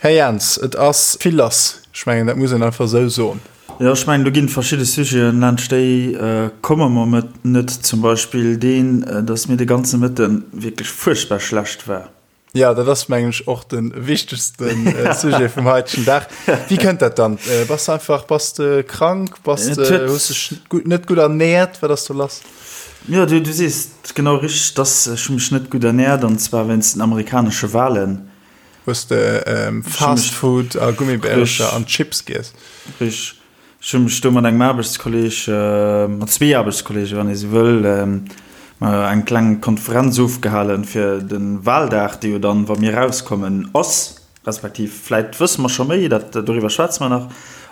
Här Jans, et ass vill lass. Ech mengen, dat muss een einfach esou soen. Jo, ech mengen, do ginn et verschidde Sujeten, laanscht déi komme mer net. Zum Beispill deen, dass mir de ganze Mëtte wierklech fuerchtbar schlecht war. Jo, dat ass, mengen ech, och de wichtegste Sujet vum haitegen Dag. Wéi kënnt dat dann? Bass de einfach, bass de krank? Bass de, hues dech net gutt ernäert? Wat ass do lass? Jo, du sees et genau richteg, dass ech hu mech net gutt ernäert, an zwar wéinst den amerikanesche Wahlen. Hues de Fast Food a Gummibärercher an Chips giess? Richteg. Ech hu mech do mat engem Aarbechtskolleg, mat zwee Aarbechtskolleegen, wann ee sou wëll, eng kleng Konferenz ofgehalen, fir de Wahldag, dee jo dann, wa mir erauskommen, ass, respektiv vläit wësse mer scho méi, dat, doriwwer schwätze mer nach.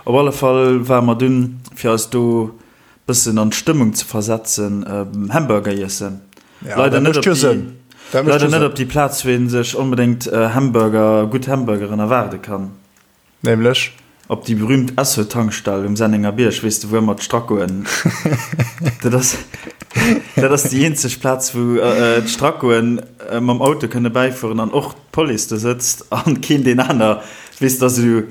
Op alle Fall ware mer dunn, fir eis do bëssen an d'Stëmmung ze versetzen, Hamburger iessen. Ja, leider net op déi, leider net op déi Plaz, wou ee sech onbedéngt Hamburger, gutt Hamburgeren erwaarde kann. Nämlech? Op déi berühmt Esso-Tankstell um Sennenger Bierg, weess de, wou ëmmer d'Strackoen, dat ass, dat ass déi eenzeg Plaz, wou d'Strackoen mam Auto kënne bäifueren an och d'Police do sëtzt an keen deen aner, weess de, ass esou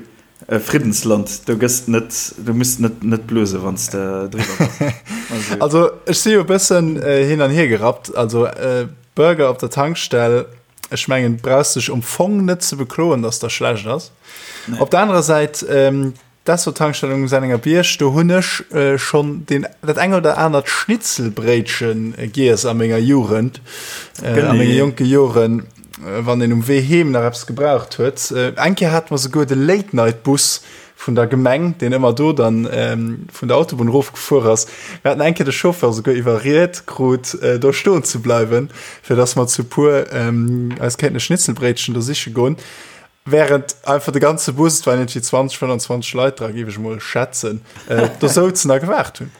E Friddensland, do gëss net, do muss net net blose wann s de driwwer bass. Also, also ech si jo e bëssen äh, hin an hier gerappt. Also äh, Burger op der Tankstell, ech mengen brauchst dech um Fong net ze bekloen, dass der schlecht ass. Nee. Op der anerer Säit ähm, d'Esso-Tankstell um Sennenger Bierg, do hunn ech äh, schonn den, dat eng oder anert Schnitzelbréitchen äh, giess a menger Jugend, äh, a menge jonke Joren. Wann een um Wee heem nach eppes gebraucht huet. Eng Kéier hate mer souguer de Late-Night-Bus vun der Gemeng, deen ëmmer do dann vun der Autobunn erofgefuer ass. Mir haten eng Kéier de Chauffeur souguer iwwerriet krut, do stoen ze bleiwen, fir dass mer zu puer eis kéinten e Schnitzelbréitchen do siche goen. Während einfach de ganze Bus, et waren iergendwéi 20, 25 Leit dra, géif ech emol schätzen, do souzen a gewaart hunn.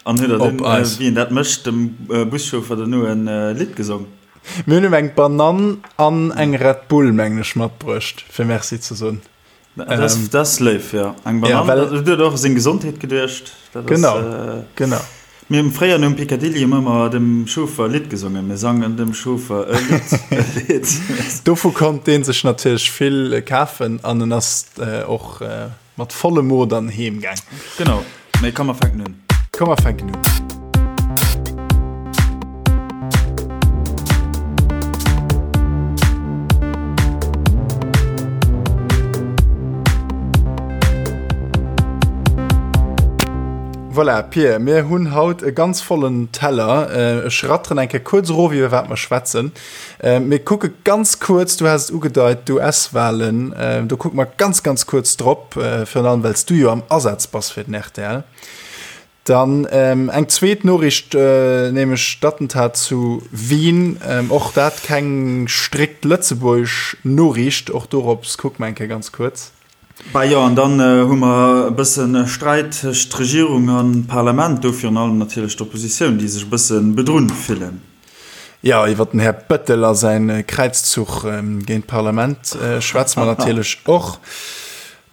An huet der dunn, wéi een dat mécht, dem Buschauffer dono e Lidd gesong? Mir hunn him eng Banann an eng Red Bull, mengen ech, matbruecht, fir Merci ze soen. Dat ass léif, jo. Eng Banann, dat huet och u seng Gesondheet geduecht. Genau, genau. Mir hunn fréier nom Picadilly hu mir ëmmer dem Chauffer e Lidd gesongen. Mir sangen dem Chauffer e Lidd, e Lidd. Dovu konnt dee sech natierlech vill kafen an en ass och Mat vollem Mo dann heem gaang. Genau, mee komm mer fänken un. Komm mer fänken un. Voilà, Pir, mir hunn haut e ganz vollen Teller. Ech ratteren eng Kéier kuerz erof, iwwer wat mer schwätzen. Mir kucke ganz kuerz, du has et ugedeit, d'US-Walen, do kucke mer ganz, ganz kuerz drop, virun allem well s du jo am Asaz bass fir den rtl. Dann eng zweet Noriicht, nämlech d'Attentat zu Wien, och dat keng strikt lëtzebuergesch Noriicht, och dorops kucke mer eng Kéier ganz kuerz. Bah jo, an dann hu mer e bësse Sträit tëscht Regierung a Parlament, do virun allem natierlech d'Oppositioun, déi sech e bësse bedrunn fillen. Jo, iwwer den Här Bettel a säin Kräizzuch géint d'Parlament schwätze mer natierlech och.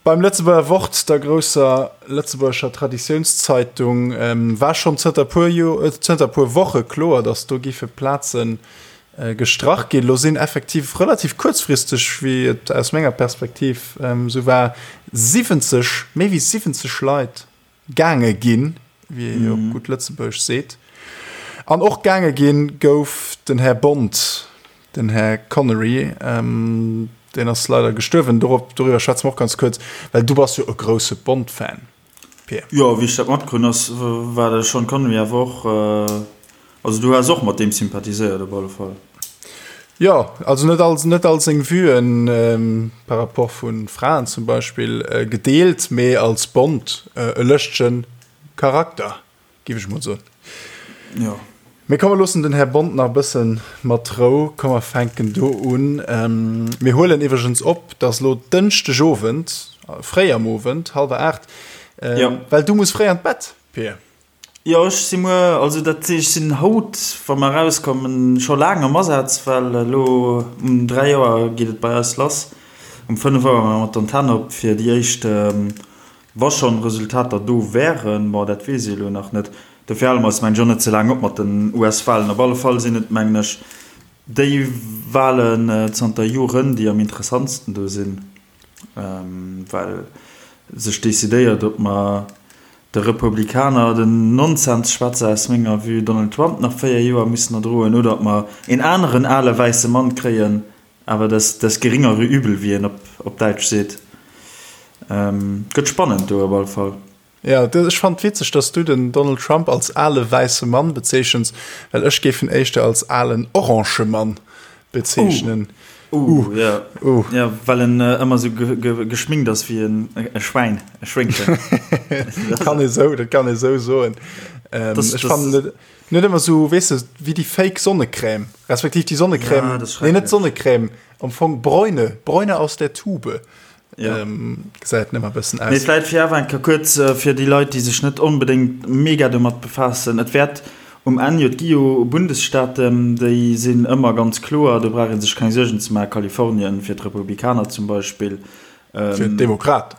Beim Lëtzebuerger Wort, der grousser lëtzebuergescher Traditiounszeitung, war schonn zënter puer zënter puer Woche kloer, datt do géife Plaze gestrach ginn. Lo sinn effektiv relativ kuerzfristeg, wéi et aus menger Perspektiv esou war, 70, méi wéi 70 Leit gaange ginn, wéi ee jo op gutt Lëtzebuergesch seet. An och gaange ginn gouf den Här Bond, den Här Connery, deen ass leider gestuerwen. Dorop, doriwwer schwätze mer och ganz kuerz, well du bass jo e grousse Bond-Fan, Pir. Jo, wéi ech dat matkrunn, ass, war de Sean Connery awer och Also du has och mat deem sympathiséiert op alle Fall. Jo, also net all, net all seng Vuen par rapport vu Fraen zum Beispill gedeelt, mee als Bond e lëschtegen Charakter, giff ech mol soen. Jo. Mee komm mer loossen den Här Bond nach e bëssen mat Rou. Komm mer fänken do un. Mir huelen iwwregens op, et ass elo Dënschdeg Owend, fréi am Owend, hallwer 8, well du muss fréi an d'Bett, Pir. Jo, ech si muer, also dat ech sinn haut, wa mer erauskommen, scho laang am Asaz, well elo um 3 Auer geet et bei eis lass. Um 5 Auer maache mer d'Antenn op fir déi éischt, wa schonn Resultater do wären, bon dat weess ee elo nach net. Dofir hale mer eis mengen ech och net ze laang op mat den US-Walen. Op alle Fall sinn et mengen ech déi Walen zanter Joren, déi am interessantsten do sinn. Well sech decidéiert, ob mer de Republikaner den Nonsensschwätzer aus menger Vue Donald Trump nach 4 Joer mussen erdroen oder ob mer een aneren ale wäisse Mann kréien, awer das, das geringere Übel, wéi een op, op Däitsch seet. Gëtt spannend do op alle Fall. Jo, ech fannen et witzeg, dass du den Donald Trump als ale wäisse Mann bezeechens, well ech géif en éischter als alen orange Mann bezeechnen. Uh, uh, ja. Uh. Ja, well en äh, ëmmer sou ge ge geschminkt ass wéi en e Schwäin, e Schwéngchen. Dat kann ee sou, dat kann ee sou soen. Ähm, das, ech fannen net, net ëmmer sou, weess de, wéi déi fake Sonnecrème, respektiv déi Sonnecrème, ja, nee, net Sonnecrème, am Fong Bräune, Bräune aus der Tube. Ja. Ähm, gesäit nëmmer bëssen aus. Mee vläit fir awer eng Kéier kuerz äh, fir déi Leit, déi sech net onbedéngt mega domat befaassen, et wäert um Enn jo, et gi jo Bundesstaaten, déi sinn ëmmer ganz kloer, do brauch ee sech keng Suergen ze maachen, Kalifornien fir d'Republikaner zum Beispill. Ähm, fir d'Demokraten.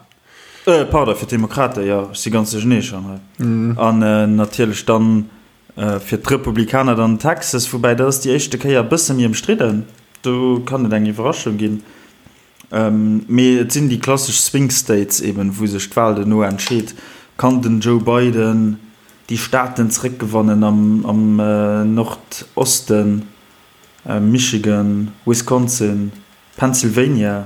Äh, pardon, fir d'Demokraten, jo, ech si ganz duerchenee schonn hei. Mm. An äh, natierlech dann äh, fir d'Republikaner dann Texas, woubäi dat ass déi éischte Kéier e bësse méi ëmstridden, do kann et eng Iwwerraschung ginn. Mee et sinn déi klassesch Swing States eben, wou sech d'Wal duerno entscheet. Kann den Joe Biden déi Staaten zeréckgewannen am Nordosten, Michigan, Wisconsin, Pennsylvania?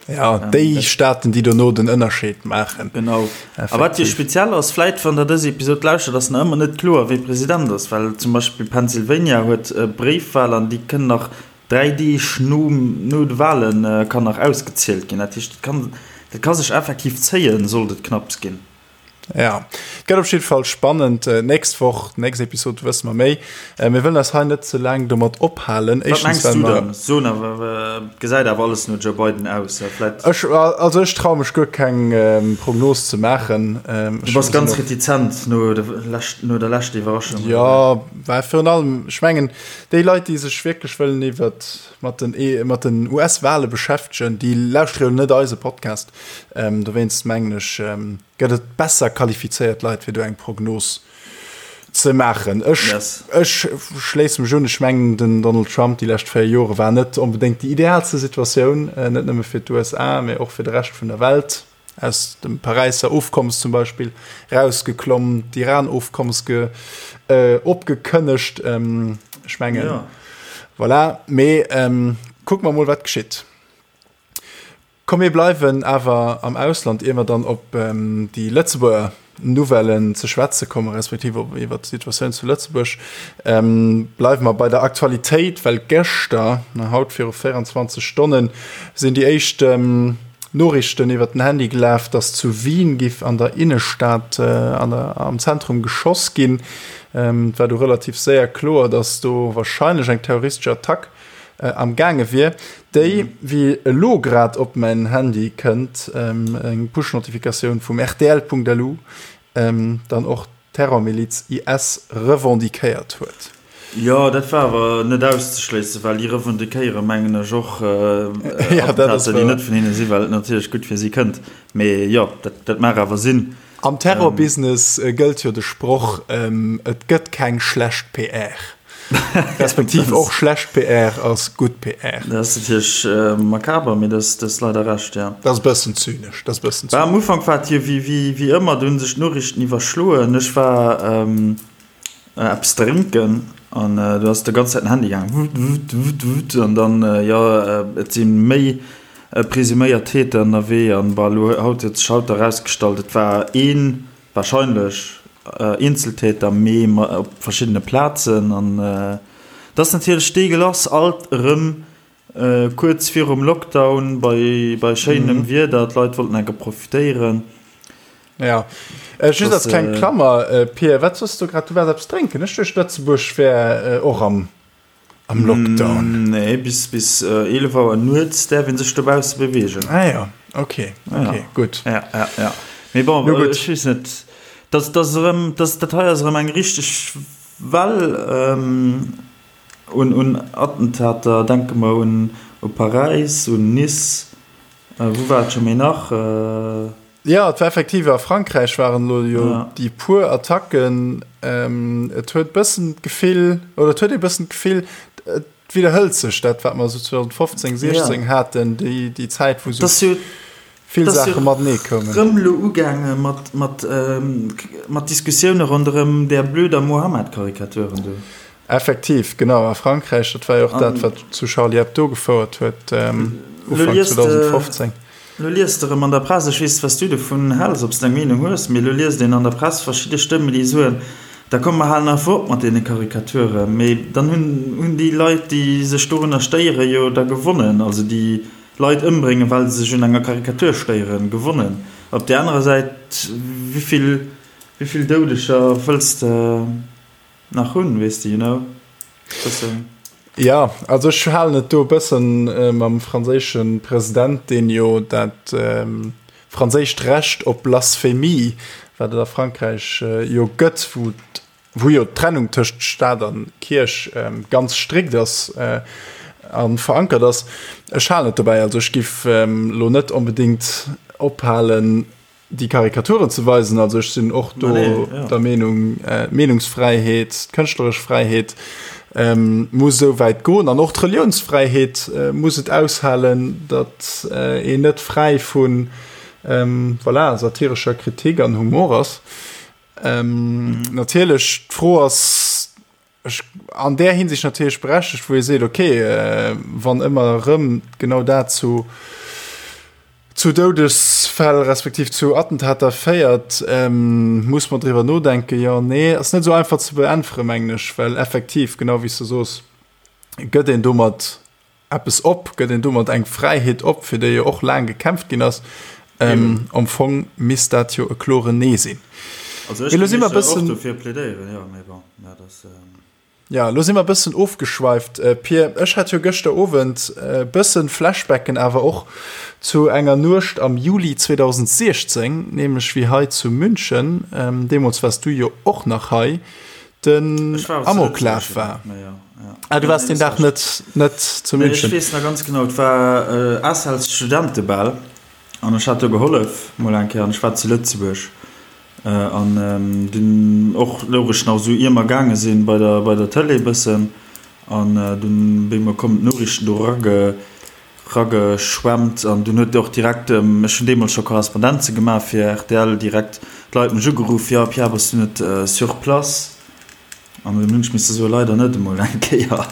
Jo, déi Staaten, déi dono den Ënnerscheed maachen. Genau. A wat jo speziell ass, vläit wann der dës Episod lauschtert, ass nach ëmmer net kloer, wie President ass, well zum Beispill Pennsylvania huet Bréifwal an déi kënnen nach 3 Deeg no de Wale kann nach ausgezielt ginn. Dat heescht, dat ka sech effektiv zéien, sollt et knapps ginn. Ja, et gëtt op jidde Fall spannend. Nächst Woch, nächst Episod wësse mer méi. Mir wëllen eis hei net ze laang domat ophalen. Wat mengs du dann? So awer, et gesäit awer alles no Joe Biden aus. Vläit. Ech, also ech traue mech guer keng Prognos ze maachen. Du bass ganz retizent no der leschter Iwwerraschung. Jo, well virun allem, ech mengen, Déi Leit, déi sech wierklech wëllen iwwert mat den e mat den US-Wale beschäftegen, déi lauschtere jo net eise Podcast. Ähm, dowéinst mengen ech, ähm, gëtt et besser qualifizéiert Leit, fir do eng Prognos ze maachen. Ech, yes. ech schléisse mech un, ech mengen, den Donald Trump déi lescht 4 Jore war net onbedéngt déi idealste Situatioun, äh, net nëmme fir d'USA, mee och fir de Rescht vun der Welt. aus dem Paräisser Ofkommes zum Beispill rausgeklomm, d'Iran-Ofkommes ge, äh, opgekënnegt. Ähm, ech mengen, ja. voilà. Mee ähm, kucke mer mol, wat geschitt. Komm, mir bleiwen awer am Ausland, ier mer dann op ähm, déi Lëtzebuerger Nouvellen ze schwätze kommen, respektiv op iwwer d'Situatioun zu Lëtzebuerg. Ähm, bleiwe mer bei der Aktualitéit, well gëschter, na, haut viru 24 Stonnen, sinn déi éischt ähm, Noriichten iwwer den Handy gelaf, dass zu Wien giff an der Innestad an der am Zentrum geschoss ginn. Et war du relativ séier kloer, dass do warscheinlech eng terroristesch Attack am gaange wier, déi, wéi elo grad op mäin Handy kënnt, eng Push-Notifikatioun vum rtl.lu, dann och d'Terrormiliz IS revendiquéiert huet. Jo, dat war awer net auszeschléissen, well déi revendiquéiere mengen ech och Attentater, déi net vun hinne sinn, well et natierlech gutt fir si kënnt. Mee jo, dat mag awer sinn. Am Terrorbusiness gëllt jo de Sproch, Et gëtt keng schlecht PR. Respektiv och schlecht PR ass gutt PR. Dat ass natierlech makaber, mee dat ass leider Recht, jo. Dat ass e bëssen zynesch, dat ass e bëssen zynesch. Am Ufank war et jo wéi ëmmer, do hu sech d'Noriichten iwwerschloen. Ech war eppes drénken an do ass de ganz Zäit den Handy gaangen, wutt, wutt, wutt, wutt, an dann, jo, et si méi presuméiert Täter ënnerwee an, bon, elo haut huet sech haut erausgestallt, et war een, Wahrscheinlech Eenzeltäter, mee op verschiddene Plazen. An et ass natierlech deegelass, alt erëm kuerz virum Lockdown, bei schéinem Wieder, d'Leit wollten enke profitéieren. Jo, just als kleng Klammer, Pir, wat soss du grad? Du waars eppes drénken? Ech duecht, Lëtzebuerg wär och am Am Lockdown? Nee, bis bis 11 Auer nuets däerf een sech dobausse beweegen. Ah ja, okay, okay, ja. gutt. Ja, ja, ja. Mee bon, no, ech weess net, dat, dat ass erëm, dat, dat hei ass erëm eng richteg Well ähm, un, un Attentater. Denke mer un, u Paräis, un Nice, äh, wou war et scho méi nach? Äh, Jo, et war effektiv a Frankräich waren elo jo déi puer Attacken. Et huet bëssen d'Gefill, oder et huet ee bëssen d'Gefill, et widderhëlt sech dat, wat mer esou 2015, 16 haten, déi, déi Zäit, wou esou. Vill Saache matenee koumen. Rëm elo ugaange mat, mat, mat Diskussioune ronderëm där blöder Mohammed-Karikaturen do. Effektiv, genau. A Frankräich, dat war jo och dat, wat zu Charlie Hebdo gefouert huet, Ufank 2015. Lo liest de rëm an der Press, ech weess, wat s du dovun häls, ob s de eng Meenung hues, mee lo liest een an der Press verschidde Stëmmen, déi soen, Da komm, mer halen einfach op mat deene Karikaturen. Mee dann hunn, hunn déi Leit, déi sech dorunner stéieren, jo da gewonnen. Also déi Leit ëmbréngen, well se sech un enger Karikatur stéieren, gewonnen. Op där anerer Säit, wéivill, wéivill Doudeger wëlls de nach hunn, weess de, you know, bëssen. Jo, also ech halen et do e bëssen mam franséische President, deen jo dat franséischt Recht op Blasphemie, wat et a Frankräich jo gëtt, wou wou jo d'Trennung tëscht Staat a Kierch ganz strikt ass a verankert ass. Ech halen et dobäi, also ech giff elo net onbedéngt ophalen, déi Karikaturen ze weisen. Also ech sinn och do der Meenung, d'Meenungsfräiheet, d'kënschtleresch Fräiheet muss esou wäit goen an och d'Reliounsfräiheet muss et aushalen, datt een net fräi vu voilà, satirescher Kritik an Humor ass. Ähm, mhm. Natierlech d'Fro ass ech, an där Hinsicht natierlech berechtigt, wou ee seet, okay, äh, wann ëmmer erëm genau dat zu zu Doudesfäll respektiv zu Attentater féiert, ähm, muss man driwwer nodenken. Jo, nee, ass net sou einfach ze beäntweren, mengen ech, well effektiv, genau wéi s du soos, gëtt een domat eppes op, gëtt een domat eng Fräiheet op, fir déi jo och laang gekämpft ginn ass. Ähm, am Fong misst dat jo e kloren Nee sinn. Also ech géif och dofir plädéieren, jo, mee bon, dat ass. Ja, lo si mer e bëssen ofgeschweift, Pir. Ech hat jo gëschter Owend e bëssen Flashbacken awer och zu enger Nuecht am Juli 2016, nämlech wéi hei zu München, deemools waars du jo och nach hei, den Amoklaf war. Ah, du waars deen Dag net, net zu München? Ech weess nach ganz genau, et war ACELs Studentebal an ech hat do gehollef mol eng Kéier an ech war zu Lëtzebuerg an dunn och louch ech nach esou ier mer gaange sinn bei der, bei der Tëlee bëssen an dunn wéi mer kommen d'Noriichten do erage Rageschwemmt an dunn huet och direkt, ech hunn deemools scho Korrespondenze gemaach fir rtl, direkt d'Leit mech ugeruff, jo Pierre, bass du net sur place? An dunn hunn ech misse soen, leider net, emol eng Kéier.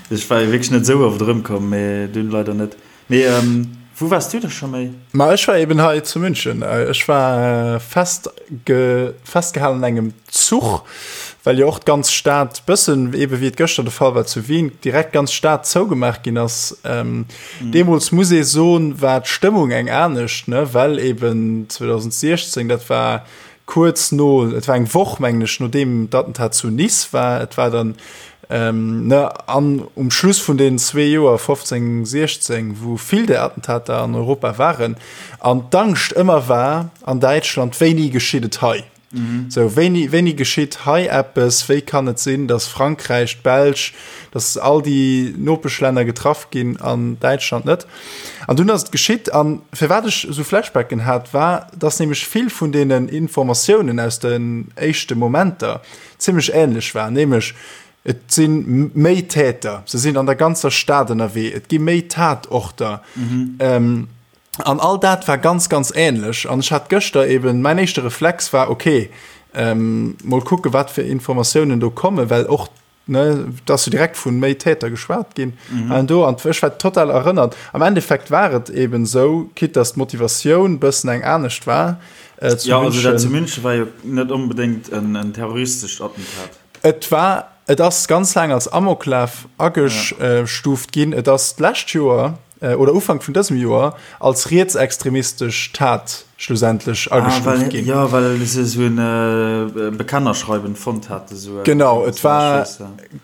Ech war jo wierklech net esou oft erëmkomm, mee dunn leider net. Mee wou waars du da scho méi? Ma ech war eben hei zu München. Ech war fest festgehalen an engem Zuch, well jo och d'ganz Stad bëssen, ebe wéi et gëschter de Fall war zu Wien, direkt d'ganz Stad zougemaach ginn ass. Ähm, mhm. Deemools muss ee soen, war d'Stëmmung eng anescht, ne, well eben 2016, dat war kuerz no, et war eng Woch mengen ech, nodeem d'Attentat zu Nice war, et war dann ähm, ne, an um Schluss vun den zwee Joer 15, 16, wou vill der Attentater an Europa waren, an d'Angscht ëmmer war an Däitschland, wéini geschitt et hei? Sou, wéini, wéini geschitt hei eppes? Wéi kann et sinn, datt Frankräich, d'Belsch, datt all déi Nopeschlänner getraff ginn an Däitschland net? An dunn ass et geschitt. An firwat ech esou Flashbacken hat, war, datt nämlech vill vun deenen Informatiounen aus den éischte Momenter zimmlech änlech waren, nämlech et si méi Täter, se sinn an der ganzer Stad ënnerwee, et gi méi Tatorter. An all dat war ganz, ganz ähnlech. An ech hat gëschter eben, mäin éischte Reflex war, okay, ähm, mol kucke wat fir Informatiounen do kommen, well och, ne, et ass jo direkt vu méi Täter geschwat ginn. Mhm. An do, an ech war total erënnert. Am Endeffekt war et eben esou, quitte dass d'Motivatioun bëssen eng anescht war, äh, zu Ja, also dat zu München war jo net onbedéngt en, en terroristescht Attentat. Et war, et ass ganz laang als Amoklaf agestuuft ginn. Et ass d'lescht Joer, oder Ufank vun dësem Joer als rietsextremistesch Tat schlussendlech agestuuft ginn. Jo, well se esou e Bekennerschreiwen fonnt hate. Genau, et war,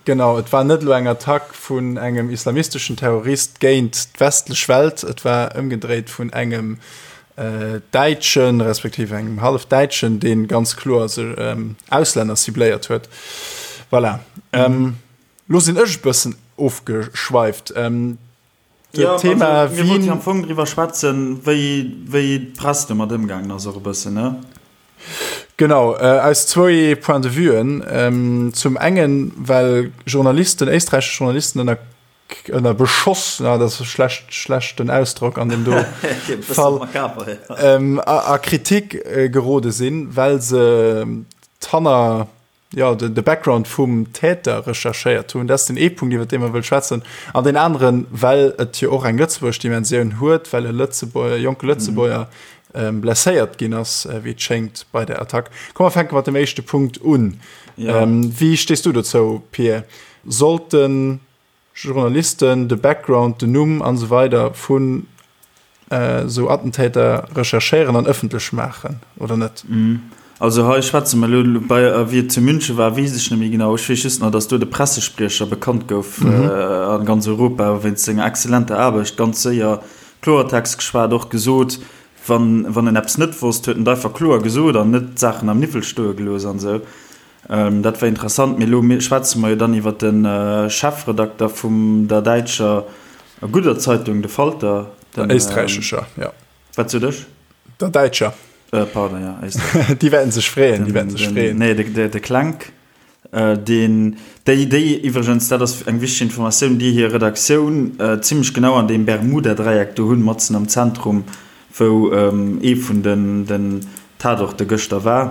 genau, et war net elo eng Attack vun engem islamisteschen Terrorist géint d'westlech Welt, et war ëmgedréit vun engem Däitschen, respektiv engem Hallefdäitschen, dee ganz kloer sech Auslänner cibléiert huet. Voilà. Lo sinn ech e bëssen ofgeschweift. Ja, Thema also, mir wollten am Fong driwwer schwätzen, wéi, wéi d'Press domat ëmgaangen ass och e bëssen, ne? Genau, äh, aus zwou Point de vuen. Ähm, zum engen, well Journalisten, éisträichesch Journalisten ënner. Ënner Beschoss, na, dat ass e schlecht, schlechten Ausdrock an deem do Fall, a Kritik gerode sinn, well se d'Hanner, jo, de Background vum Täter recherchéiert hunn. Dat ass den ee Punkt, iwwer dee mer wëll schwätzen. An deen aneren, well et jo och eng lëtzebuergesch Dimensioun huet, well e Lëtzebuerger, e jonke Lëtzebuerger blesséiert ginn ass, wéi et schéngt, bei der Attack. Komm, mer fänke mat dem éischte Punkt un. Wéi stees du dozou, Pir? Sollten Journalisten de Background, den Numm an esou weider vun esou Attentäter recherchéieren an ëffentlech maachen oder net? Also hei schwätze mer elo bei, wéi et zu München war, weess ech net méi genau. Ech weess just nach, datt do de Pressespriecher bekannt gouf a ganz Europa wéinst senger exzellenter Aarbecht, ganz séier Kloertext geschwat, och gesot, wann wann en eppes net wosst, huet en et einfach kloer gesot an net d'Saachen am Niwwel stoe gelooss an esou. Dat war interessant. Mee elo schwätze mer jo dann iwwer de Chefredakter vum der däitscher gudder Zeitung, de Falter. Der éisträichescher, jo. Wat sot ech? Der däitscher. Pardon, jo, éisträichesch. Déi wäerten sech freeën, déi wäerten sech freeën. Nee, de Klenk, deen, déi, déi iwwregens, dat ass eng wichteg Informatioun, déi hir Redaktioun zimlech genau an deem Bermuda-Dräieck do hunn, matzen am Zentrum, wou ee vun den Tatorte gëschter war.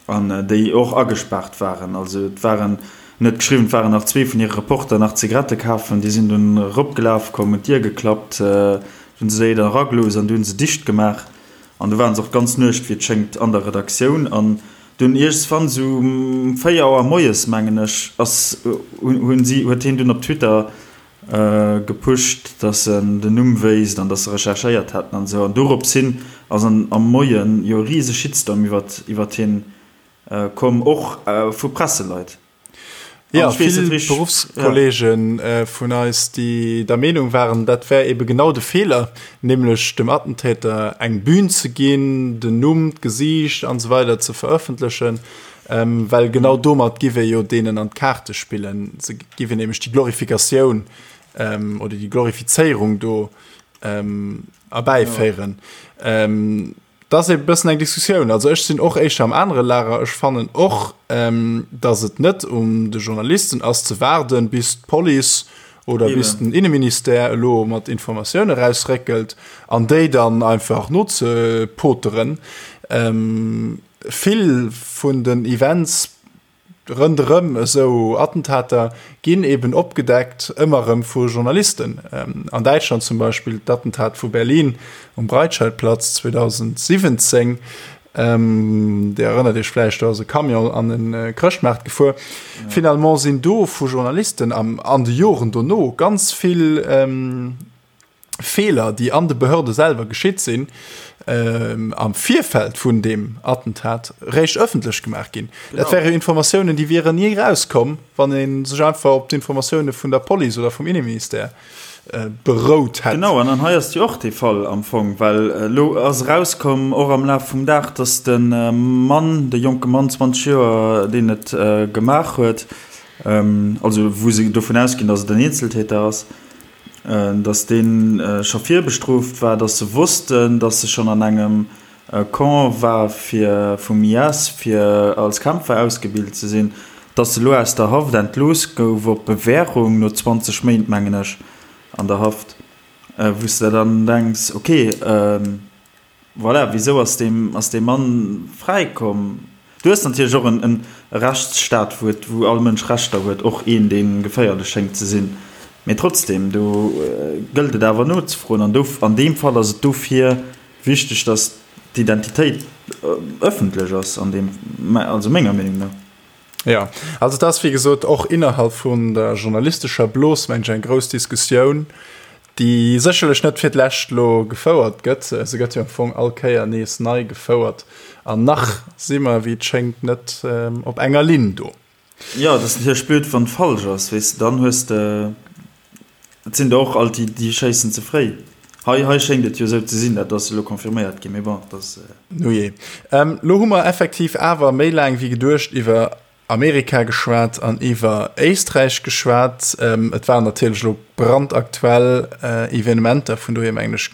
An déi och agespaart waren. Also et waren, en huet geschriwwen, et waren nach zwee vun hire Reporter nach Zigarette kafen, déi sinn dunn eropgelaf komm, hunn d'Dier geklappt, hunn se déi dann eragelooss an du hunn se dicht gemaach. An du waren se och d'ganz Nuecht, wéi et schéngt, an der Redaktioun. An dunn iergendswann, esou um 4 Auer moies, mengen ech, ass, hunn si, huet hien dunn op Twitter Gepusht, dass en den Numm wéisst an dass se recherchéiert hätten an esou. An dorops hin ass an am Moien jo e rise Shitstorm iwwert iwwert hien komm, och vu Presseleit. Jo, vill Beruffskolleege vun eis, déi der Meenung waren, dat wär ebe genau de Feeler, nämlech dem Attentäter eng Bühn ze ginn, den Numm, d'Gesiicht an esou weider ze verëffentlechen. Well genau domat giff ee jo deenen an d'Kaarte spillen. Se giff een nämlech déi Glorifikatioun oder déi Glorifizéierung do erbäiféieren. Dat ass e bëssen eng Diskussioun. Also ech sinn och éischter am anere Lager. Ech fannen och, datt et net un de Journalisten ass ze waarden, bis d'Police oder bis den Inneministère elo mat Informatioune rausréckelt an déi dann einfach nozepoteren. Vill vun den Events rënderëm esou Attentater ginn eben opgedeckt, ëmmer erëm vu Journalisten. An Däitschland zum Beispill d'Attentat vu Berlin um Breitscheidplatz 2017, Dir erënnert Iech vläicht, do ass e Camion an e Chrëschtmaart gefuer. Finalement sinn do vu Journalisten an de Joren dono ganz vill Feeler, déi an de Behörde selwer geschitt sinn, am Virfeld vun deem Attentat, réischt ëffentlech gemaach ginn. Dat wäre Informatiounen, déi wieren ni erauskomm, wann ee sech einfach op d'Informatioune vun der Police oder vum Inneministère berout hätt. Genau, an an hei ass jo och dee Fall am Fong, well elo ass erauskomm, och am Laf vum Dag, datt de Mann, de jonke Mann, 20 Joer, deen et gemaach huet, also wou se dovun ausginn, datt et en Eenzeltäter ass, dass dee scho virbestrooft war, dass se wossten, dass e schonn an engem Camp war fir vum IS, fir als Kämpfer ausgebilt ze sinn, dass e lo aus der Haft entlooss gouf op Bewährung no 20 Méint, mengen ech, an der Haft, wou s de der dann denks, okay, Voilà, wisou ass dee, ass dee Mann fräi komm? Du hues natierlech och en Rechtsstaat, wou et, wou all Mënsch Rechter huet, och een, dee geféierlech schéngt ze sinn. Mee trotzdem, do gëllt et awer nozefroen. An do, an deem Fall ass et dofir wichteg, datt d'Identitéit ëffentlech ass, an deem, also menger Meenung no. Jo, also et ass wéi gesot och innerhalb vun der journalistescher Blos, mengen ech, eng grouss Diskussioun, déi sécherlech net fir d'lescht elo gefouert gëtt. Se gëtt jo am Fong all Kéier nees nei gefouert an nach si mer, wéi et schéngt, net op enger Linn do. Jo, et ass natierlech blöd, wann et falsch ass, weess de, dann hues de Et sinn der och alt déi, déi schéissen ze fréi. Hei, hei schéngt et jo esou ze sinn, dat ass elo confirméiert ginn, mee bon, dat ass. Nujee. Lo hu mer effektiv awer méi laang wéi geduecht iwwer Amerika geschwat an iwwer Éisträich geschwat. Et waren natierlech elo brandaktuell Evenementer, vun dohier mengen ech,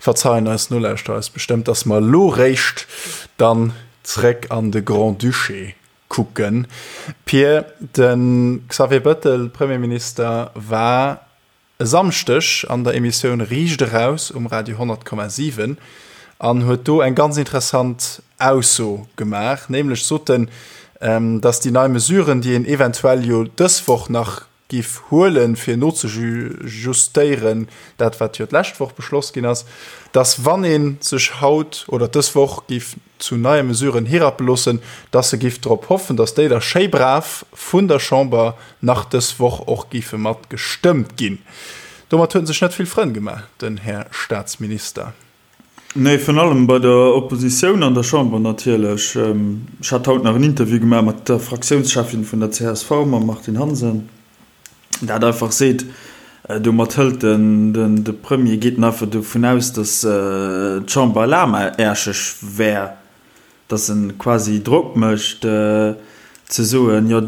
verzeien eis Nolauschterer eis bestëmmt, dass mer elo réischt dann zréck an de Grand-Duché kucken. Pir, de Xavier Bëttel, Premierminister, war. e Samschdeg an der Emissioun Riicht eraus um Radio 100,7 an huet do eng ganz interessant Ausso gemaach, nämlech sot en, dass déi nei Mesuren, déi een eventuell jo dës Woch nach giff huelen, fir nozejustéieren, dat wat jo d'lescht Woch beschloss ginn ass, dass wann ee sech haut oder dës Woch giff zu neie Mesuren hirappe loossen, dass e giff drop hoffen, dass déi da schéi brav vun der Chamber nach dës Woch och giffe mat gestëmmt ginn. Domat huet en sech net vill Frënn gemaach, den Här Staatsminister. Nee, virun allem bei der Oppositioun an der Chamber natierlech. Ech hat haut nach en Interview gemaach mat der Fraktiounscheffin vun der csv, mam Martine Hansen, dat einfach seet, domat hëlt den de Premier, geet en einfach dovun aus, datt d'Chamber lahmaerscheg wär, datt e quasi Drock mécht ze soen, jo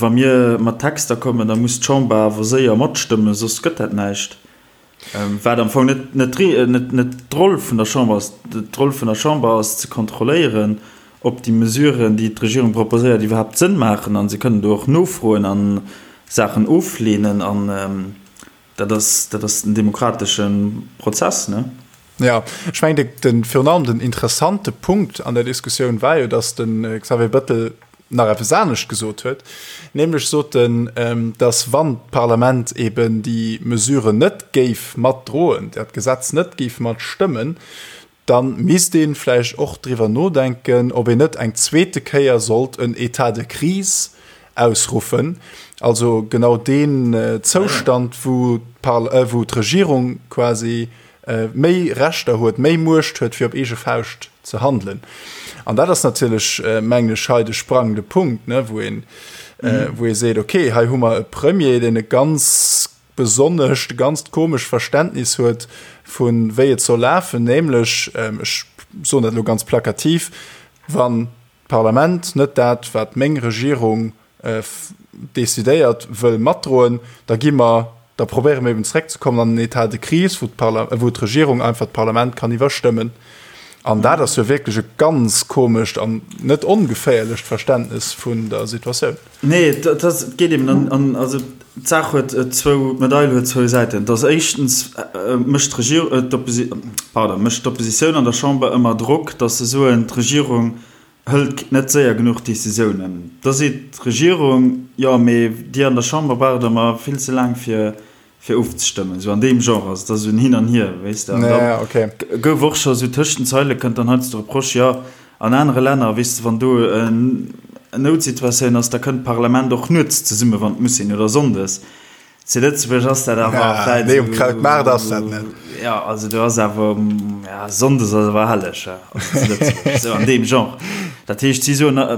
wa mir mat Texter kommen, da muss d'Chamber awer séier matstëmmen, soss gëtt dat näischt. Wat am Fong net, net, net, net d'Roll vun der Chamber ass. D'Roll vun der Chamber ass ze kontrolléieren, ob déi Mesuren, déi d'Regierung proposéiert, iwwerhaapt Sënn maachen. A se kënnen do och nofroen a Saachen ofleenen. An dat ass, dat ass den demokratesche Prozess, ne? Jo, ech mengen, de, virun allem den interessante Punkt an der Diskussioun war jo, datt de Xavier Bettel nach eppes anescht gesot huet, nämlech sot en, datt wann d'Parlament eben déi Mesure net géif matdroen, dat Gesetz net géif matstëmmen, da misst ee vläicht och driwwer nodenken, ob een net eng zweete Kéier sollt en État de crise ausruffen, also genau deen Zoustand, wou d'Regierung quasi méi Rechter huet, méi Muecht huet, fir op eege Fauscht ze handelen. An dat ass natierlech, mengen ech, hei de sprangende Punkt, ne, wou een, wou ee seet, okay, hei hu mer e Premier, deen e ganz besonnescht, e ganzt komescht Verständnis huet vu wéi et soll lafen, nämlech, ech soen dat elo ganz plakativ, wann d'Parlament net dat, wat meng Regierung decidéiert, wëll matdroen, da gi mer, da probéiere mer eben zeréckzekommen an den État de crise, wou d'Parla-, wou d'Regierung einfach d'Parlament kann iwwerstëmmen. An dat ass jo wierklech e ganz komescht an net ongeféierlecht Verständnes vun der Situatioun. Nee, et ass, et geet eben an, an, also d'Saach huet zwou, d'Medail huet zwou Säiten. Et ass éischtens mécht d'Regierung, d'Opposi-, pardon, mécht d'Oppositioun an der Chamber ëmmer Drock, datt se soen, d'Regierung hëlt net séier genuch Decisiounen. Da seet d'Regierung, jo, mee Dir an der Chamber braucht ëmmer vill ze laang fir fir ofzestëmmen. Esou an deem Genre ass et, ass esou en Hin an Hier, weess de. An da gouf och scho esou tëscht den Zeile kënnt dann heiansdo de Reproche, jo, an anere Länner, weess de, wann do en Noutsituatioun ass, da kënnt d'Parlament och nuets zesummen, wann et muss sinn, oder sonndes. Zu Lëtzebuerg ass dat awer ja, vläit nee, um Krautmaart ass dat net. Ja, also do ass awer ja, Sonndes ass awer helleg ja, also zu Lëtzebuerg, sou an deem Genre. Dat heescht, si soen, äh,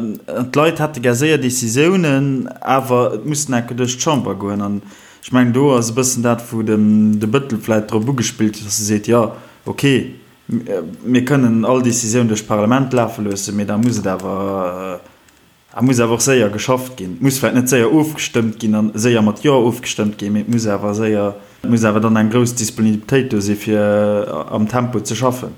d'Leit hätte gär séier Decisiounen, awer et muss enke duerch d'Chamber goen. An ech mengen, do ass e bëssen dat, wou den de Bëttel vläit drop ugespillt huet, dass e seet, jo, okay, mir kënnen all Decisioun duerch d'Parlament lafe loossen, mee da muss et awer, Et muss awer och séier geschafft ginn. Et muss vläicht net séier ofgestëmmt ginn a séier mat Jo ofgestëmmt ginn, mee et muss awer séier, et muss awer dann eng grouss Disponibilitéit do si fir am Tempo ze schaffen.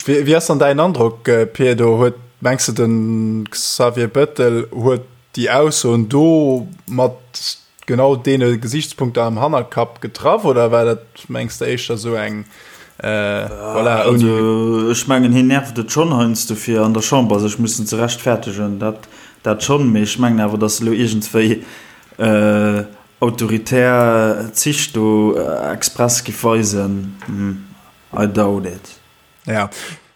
Wéi ass dann däin Androck, Pir? Do huet, mengs de, de Xavier Bettel huet déi Aussoen do mat genau deene Gesichtspunkter am Hannerkapp getraff oder war dat, mengs de, éischter esou eng, voilà, ouni. Also ech mengen, hien nervt et schonn heiansdo fir an der Chamber sech mussen ze rechtfertegen, dat, dat schonn, mee ech mengen awer, datt elo iergendswéi autoritär Zich do express giff weisen, I doubt it. Ja,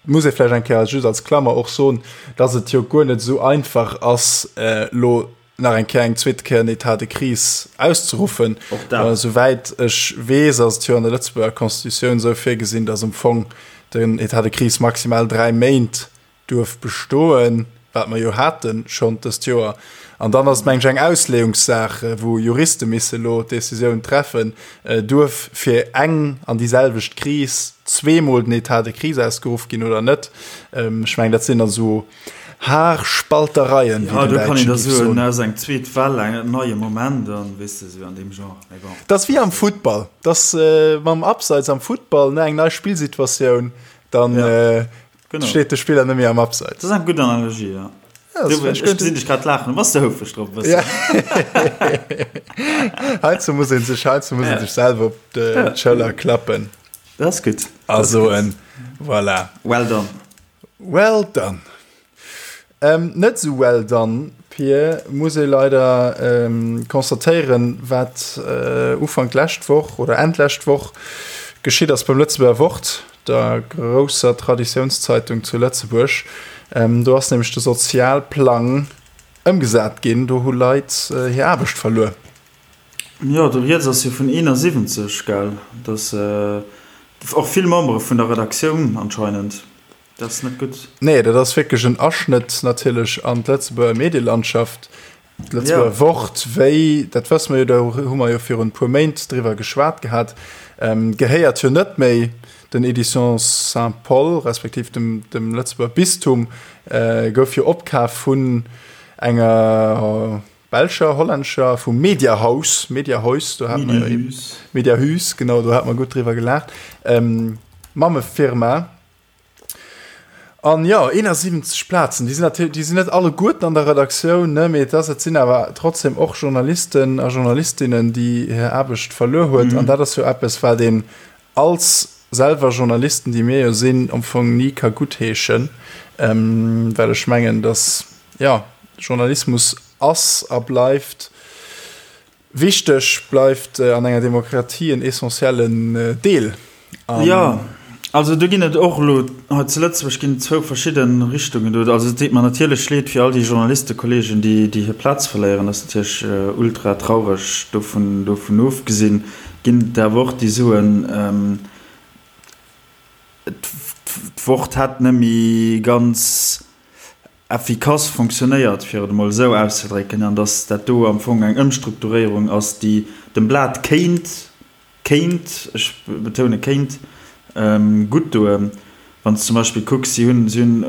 muss ee vläicht eng Kéier just als Klammer och soen, datt et jo guer net esou einfach ass, elo nach eng Kéier eng zweete Kéier en État de crise auszeruffen. Och dat. Souwäit ech weess, ass et jo an der Lëtzebuerger Constitutioun esou virgesinn, datt am Fong den État de crise maximal 3 Méint duerf bestoen, wat mer jo hate schonn dëst Joer. An dann ass et, meng ech, eng Ausleeungssaach, wou Juriste misse elo d'Decisioun treffen, Duerf fir eng an déi selwecht Kris zweemol den État de crise ausgeruff ginn oder net? Ech mengen, dat sinn dann esou Haarspaltereien, wéi den Däitsche géif soen. Ja, do kann een da soen, ass eng zweet Well, en neie Moment an, weess de, esou an deem Genre. Mee bon. Dat ass wéi am Futtball, dat ass mam Abseits am Futtball, ne, eng nei Spillsituatioun, dann steet de Spiller net méi am Abseits. Dat ass eng gutt Analogie, ja. Ja, du, ech gesinn dech grad laachen, bass de houfreg drop e bëssen? Heiansdo muss een sech, heiansdo muss een sech selwer op d'Schëller klappen. Dat ass gutt. A soen, voilà. Well done. Well done. Net esou well done, Pir, muss ee leider constatéieren, wat Ufank d'lescht Woch oder Enn d'lescht Woch geschitt ass beim Lëtzebuerger Wort, der grousser Traditiounszeitung zu Lëtzebuerg. Do ass nämlech de Sozialplang ëmgesat ginn, do hu Leit hir Aarbecht verluer. Jo, do rieds ass jo vun 71, gell? Dass och vill Membere vun der Redaktioun anscheinend. Dat ass net gutt. Nee, dat ass wierklech en Aschnëtt natierlech an d'Lëtzebuerger Medielandschaft. D'Lëtzebuerger Wort, wéi, dat wësse mer jo, do hu mer jo virun e puer Méint driwwer geschwat gehat, gehéiert jo net méi den Éditions Saint-Paul, respektiv dem, dem Lëtzebuerger Bistum, gouf jo opkaf vun enger belscher, hollännescher, vum Mediahaus, Mediahuis, do hat mer jo, Mediahuis, genau, do hat mer gutt driwwer gelaacht, Mammefirma. An jo, 71 Plazen, déi sinn natierlech, déi sinn net alleguerten an der Redaktioun, ne, mee et ass, et sinn awer trotzdem och Journalisten a Journalistinnen, déi hir Aarbecht verluer huet. An dat ass jo eppes, wat een als selwer Journalisten, déi mir jo sinn, am Fong ni ka guttheeschen, well ech mengen, datt, jo, Journalismus ass a bleift Wichteg, bleift an enger Demokratie en essentiellen Deel. Jo, also do ginn et och elo hei zu Lëtzebuerg ginn et zwou verschidde Richtungen do. Also et deet mer natierlech leed fir all déi Journalistekolleegen, déi déi hir Plaz verléieren. Dat ass natierlech ultra traureg. Dovun dovun ofgesinn ginn et awer och déi soen, d'Wort hätt net méi ganz effikass fonctionnéiert, fir et emol esou auszedrécken, an datt dat do am Fong eng Ëmstrukturéierung ass, déi dem Blat kéint, kéint, ech betoune kéint, gutt doen. Wann s de zum Beispill kucks, si hunn, si hunn,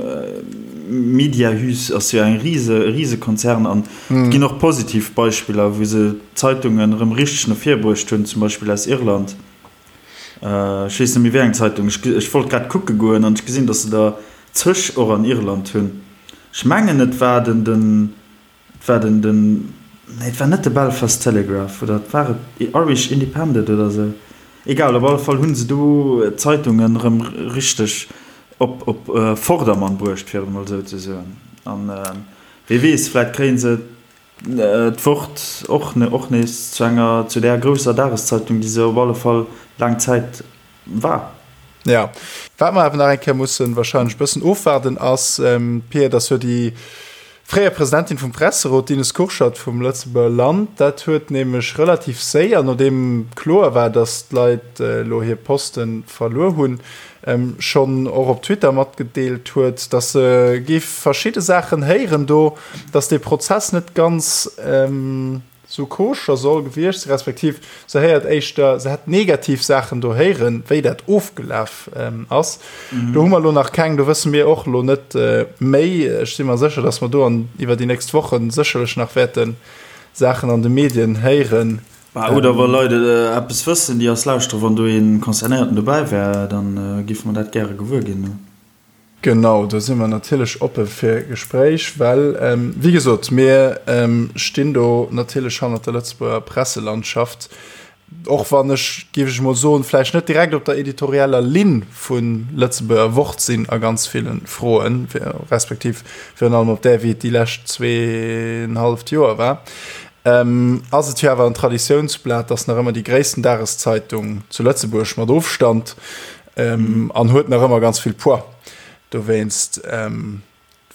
Mediahuis ass jo eng rise, e Risekonzern an et ginn och positiv Beispiller, wou se d'Zeitungen erëm richteg no vir bruecht hunn, zum Beispill aus Irland. Ech weess net méi wéi eng Zeitung. Ech wollt grad kucke goen an ech gesinn, datt se der zeg och an Irland hunn. Ech mengen et war den, den, et war den, den, nee et war net de Belfast Telegraph oder et war et Irish Independent oder esou. Egal, op alle Fall hu se do d'Zeitungen erëm richteg op, op Vordermann bruecht, fir et emol esou ze soen. An wee weess, vläit kréie se d'Wort och och nees zu enger, zu där grousser Dageszeitung, déi se op alle Fall laang Zäit war. Jo, wat mer awer nach eng Kéier mussen wahrscheinlech e bëssen ofwaarden ass, Pia, dass jo déi fréier Presidentin vum Presserot, d'Ines Kurschat vum Lëtzebuerger Land, dat huet nämlech relativ séier, nodeem kloer war, dass d'Leit elo hir Poste verluer hunn, schonn och op Twitter matgedeelt huet, dass se géif verschidde Saachen héieren do, dass dee Prozess net ganz sou koscher soll gewiescht sinn, respektiv se héiert éischter, se hätt negativ Saachen do héieren, wéi dat ofgelaf ass. Do hu mer elo nach keng, do wësse mir och elo net méi. Ech si mer sécher, dass mer do an iwwer déi nächst Woche sécherlech nach wäerte Saachen an de Medien héieren. Bah, oder wa Leit eppes wëssen, déi eis lauschteren, wann do ee Concernéierten dobäi wär, da géife mer dat gäre gewuer ginn. Genau, do si mer natierlech oppe fir Gespréich, well, wéi gesot, mir stinn do natierlech hannert der Lëtzebuerger Presselandschaft, och wann ech, géif ech emol soen, vläicht net direkt op der editorieller Linn vun Lëtzebuerger Wort sinn a ganz ville Froen, respektiv virun allem op där, wéi et déi lescht zweeënhalleft Joer war, ass et jo awer en Traditiounsblat, ass nach ëmmer déi gréissten Dageszeitung zu Lëtzebuerg mat Ofstand. An huet nach ëmmer ganz vill Poids. Dowéinst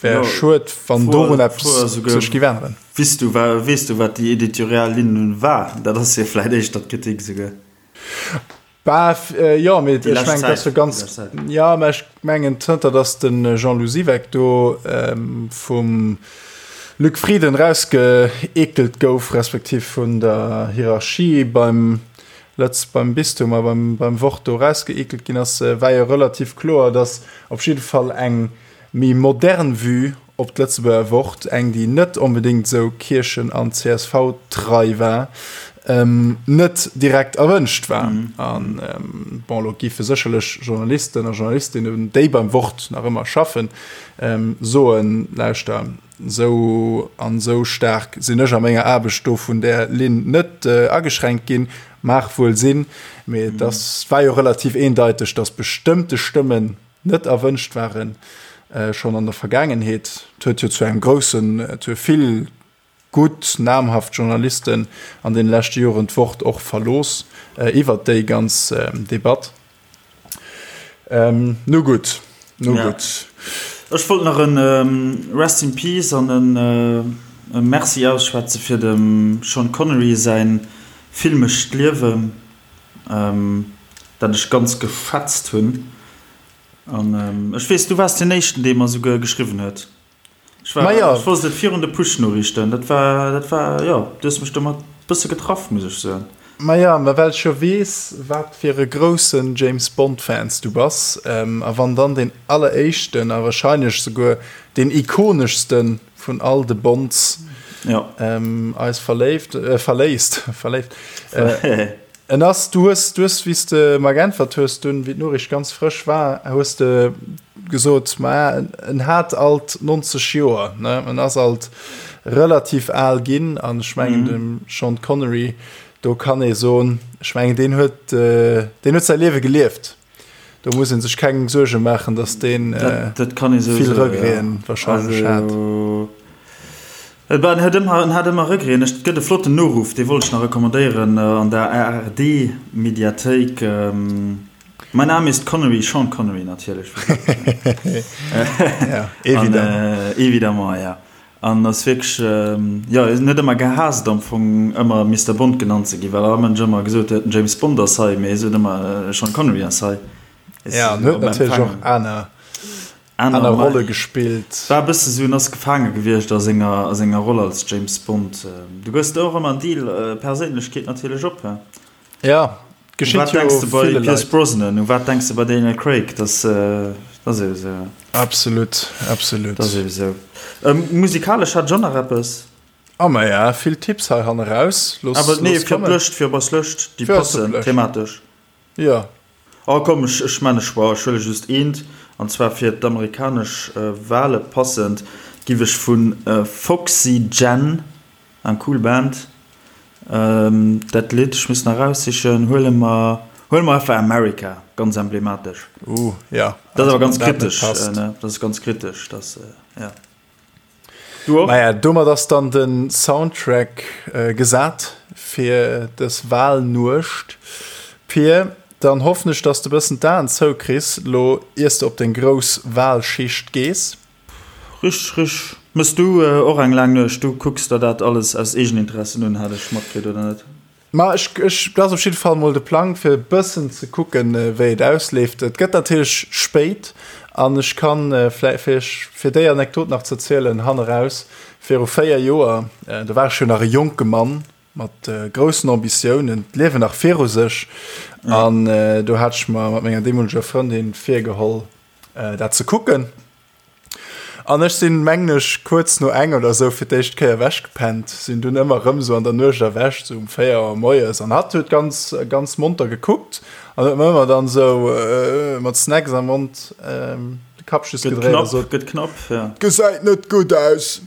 wär schued, wann dorun eppes sech géif änneren. Weess du, weess du, wat déi editorial Linn war? Dat ass jo vläicht éischter d'Kritik esouguer. Bah, jo, mee ech mengen, dat ass jo ganz, jo, mä ech mengen, zënter datt de Jean-Lou Siweck do vum Luc Frieden erausgeekelt gouf, respektiv vun der Hierarchie beim Lëtz beim Bistum a beim, beim Wort do erausgeekelt ginn ass, war jo relativ kloer, datt op jidde Fall eng méi modern Vue op d'Lëtzebuerger Wort, eng déi net onbedéngt esou Kierchen an CSV-trei war. Net direkt erwënscht war. An bon, elo géife sécherlech Journalisten a Journalistinnen, déi beim Wort nach ëmmer schaffen, soen, Lauschter, esou an esou staark sinn ech a menger Aarbecht do vun där Linn net ageschränkt ginn. Mag wuel sinn, mee et ass, war jo relativ eendeiteg, datt bestëmmte Stëmmen net erwënscht waren, schonn an der Vergaangenheet. Et huet jo zu engem groussen, et hu vill gutt namhaft Journalisten an deene leschte Joren d'Wort och verlooss iwwert déi ganz Debatt. Nu gutt, nu gutt. Ech wollt nach e Rest in Peace an e Merci ausschwätze fir dem Sean Connery säin filmescht Liewen, dat ech ganz geschätzt hunn. An ech weess, du waars deen éischten, dee mer esouguer geschriwwen huet. Ech war, Maja. ech wosst et virun de Push-Noriichten. Dat war, dat war, jo, du hues mech domat bësse getraff, muss ech soen. Maja, mä well ech jo weess, wat fir e groussen James Bond-Fans du bass, a wann dann deen alleréischten a wahrscheinlech souguer deen ikoneschste vun all de Bonds ja. eis verléift, verléisst, verléift, En ass, du hues, du hues, wéi s de mer geäntwert hues dunn, wéi d'Noriicht ganz frësch war, hues de gesot, ma en hat alt 90 Joer, ne, en ass alt relativ al ginn an ech mengen dem Sean Connery, do kann ee soen, ech mengen deen huet, deen huet säi Liewe gelieft. Do muss ee sech keng Suerge maachen, datt deen vill Regreten warscheinlech hat. En hat ëmmer Regreten. Et gëtt e flotten Noruff, dee wollt ech nach recommandéieren an der ARD-Mediathéik. Mein Name ist Connery, Sean Connery natierlech. Évidemment, ja. An ass wierklech, jo, en huet ëmmer gehaasst am Fong ëmmer Mister Bond genannt ze ginn, well all Mënsch ëmmer gesot huet, den James Bond ass hei, mee hie sot ëmmer, Sean Connery ass hei. Ja, en huet natierlech och aner, aner Rolle gespillt. War e bësse sou, en ass gefaange gewiescht a senger, a senger Roll als James Bond. Du gëss der och ëmmer en Deal, Perséinlechkeet natierlech op, he? Ja, geschitt jo ville Leit. Bei Pierce Brosnan, u wat denks de bei Daniel Craig? Dat ass ebe sou. Absolut, absolut. Dat ass ebe sou. Musikalesch hat ech och nach eppes. Ah maja, vill Tipps hei hanne raus. Looss, Awer nee, fir d'Lëscht, fir op eis Lëscht, déi passen thematesch. Jo. Oh komm, ech, ech man e Choix, ech huele just eent, an zwar fir d'amerikanesch Wale passend, giff ech vu Foxy Jen, Eng cool Band. Dat Lidd, ech muss nach eraussichen, huele mer, huele mer einfach America, ganz emblematesch. Uh, ja. Dat ass awer ganz kritesch, ne? Dat ass ganz kritesch, dat, ja. Du och? Maja, domat ass dann de Soundtrack gesat fir dës Wahlnuecht. Pir, dann hoffen ech, dass de bëssen d'Aen zoukriss, lo iers de op deng grouss Wahlschicht gees. Richteg, richteg. Mëss du och eng laang Nuecht? Du kucks der dat alles aus Eegeninteressen un, hat ech matkritt, oder net? Ma ech, ech, dat ass op jidde Fall mol de Plang, fir e bëssen ze kucken, wéi et ausleeft. Et gëtt natierlech spéit an ech kann vläi, fir iech, fir déi Anekdot nach ze erzielen, hanneraus, viru 4 Joer, do war ech jo nach e jonke Mann mat groussen Ambitiounen, d'Liewen nach viru sech, an do hat ech mer mat menger deemoleger Frëndin virgeholl, dat ze kucken. An ech sinn, mengen ech, kuerz no eng oder esou fir d'éischt Kéier ewechgepennt, sinn dunn ëmmer erëm esou an der Nuecht erwächt, esou um 4 Auer moies. An hatt huet ganz, ganz monter gekuckt an huet mer ëmmer dann esou mat Snacks am Mond de Kapp just gedréit a sot, Gëtt knapp, ja. Gesäit net gutt aus.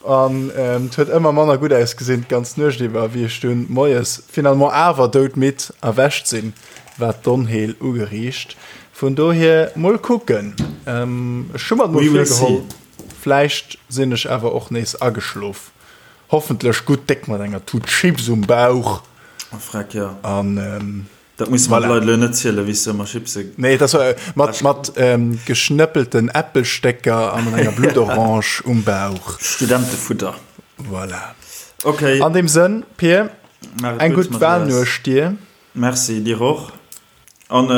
An et huet ëmmer manner gutt ausgesinn d'ganz Nuecht iwwer, wéi ech dunn moies finalement awer doudmidd erwächt sinn. War d'Onheel ugeriicht. Vun dohier mol kucken. Ech hu mer et mol virgeholl, vläicht sinn ech awer och nees ageschlof. Hoffentlech gutt déck mat enger Tut Chips um Bauch. Freck jo. An dat musse mer de Leit elo net zielen, wéi s du ëmmer Chipse. Nee, dat war mat mat geschnëppelten Äppelstécker a mat enger Bluttorange um Bauch. Studentefutter. Voilà. Okay. An deem Sënn, Pir, eng gutt Walnuecht dir. Merci dir och. An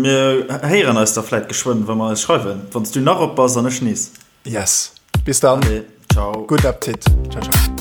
mir héieren eis da vläit geschwënn, wa mer eis schreiwen, wann s du nach op bass an ech nees. Yes. Bis dann. Allez, ciao. Gudden Appetit. Ciao, ciao.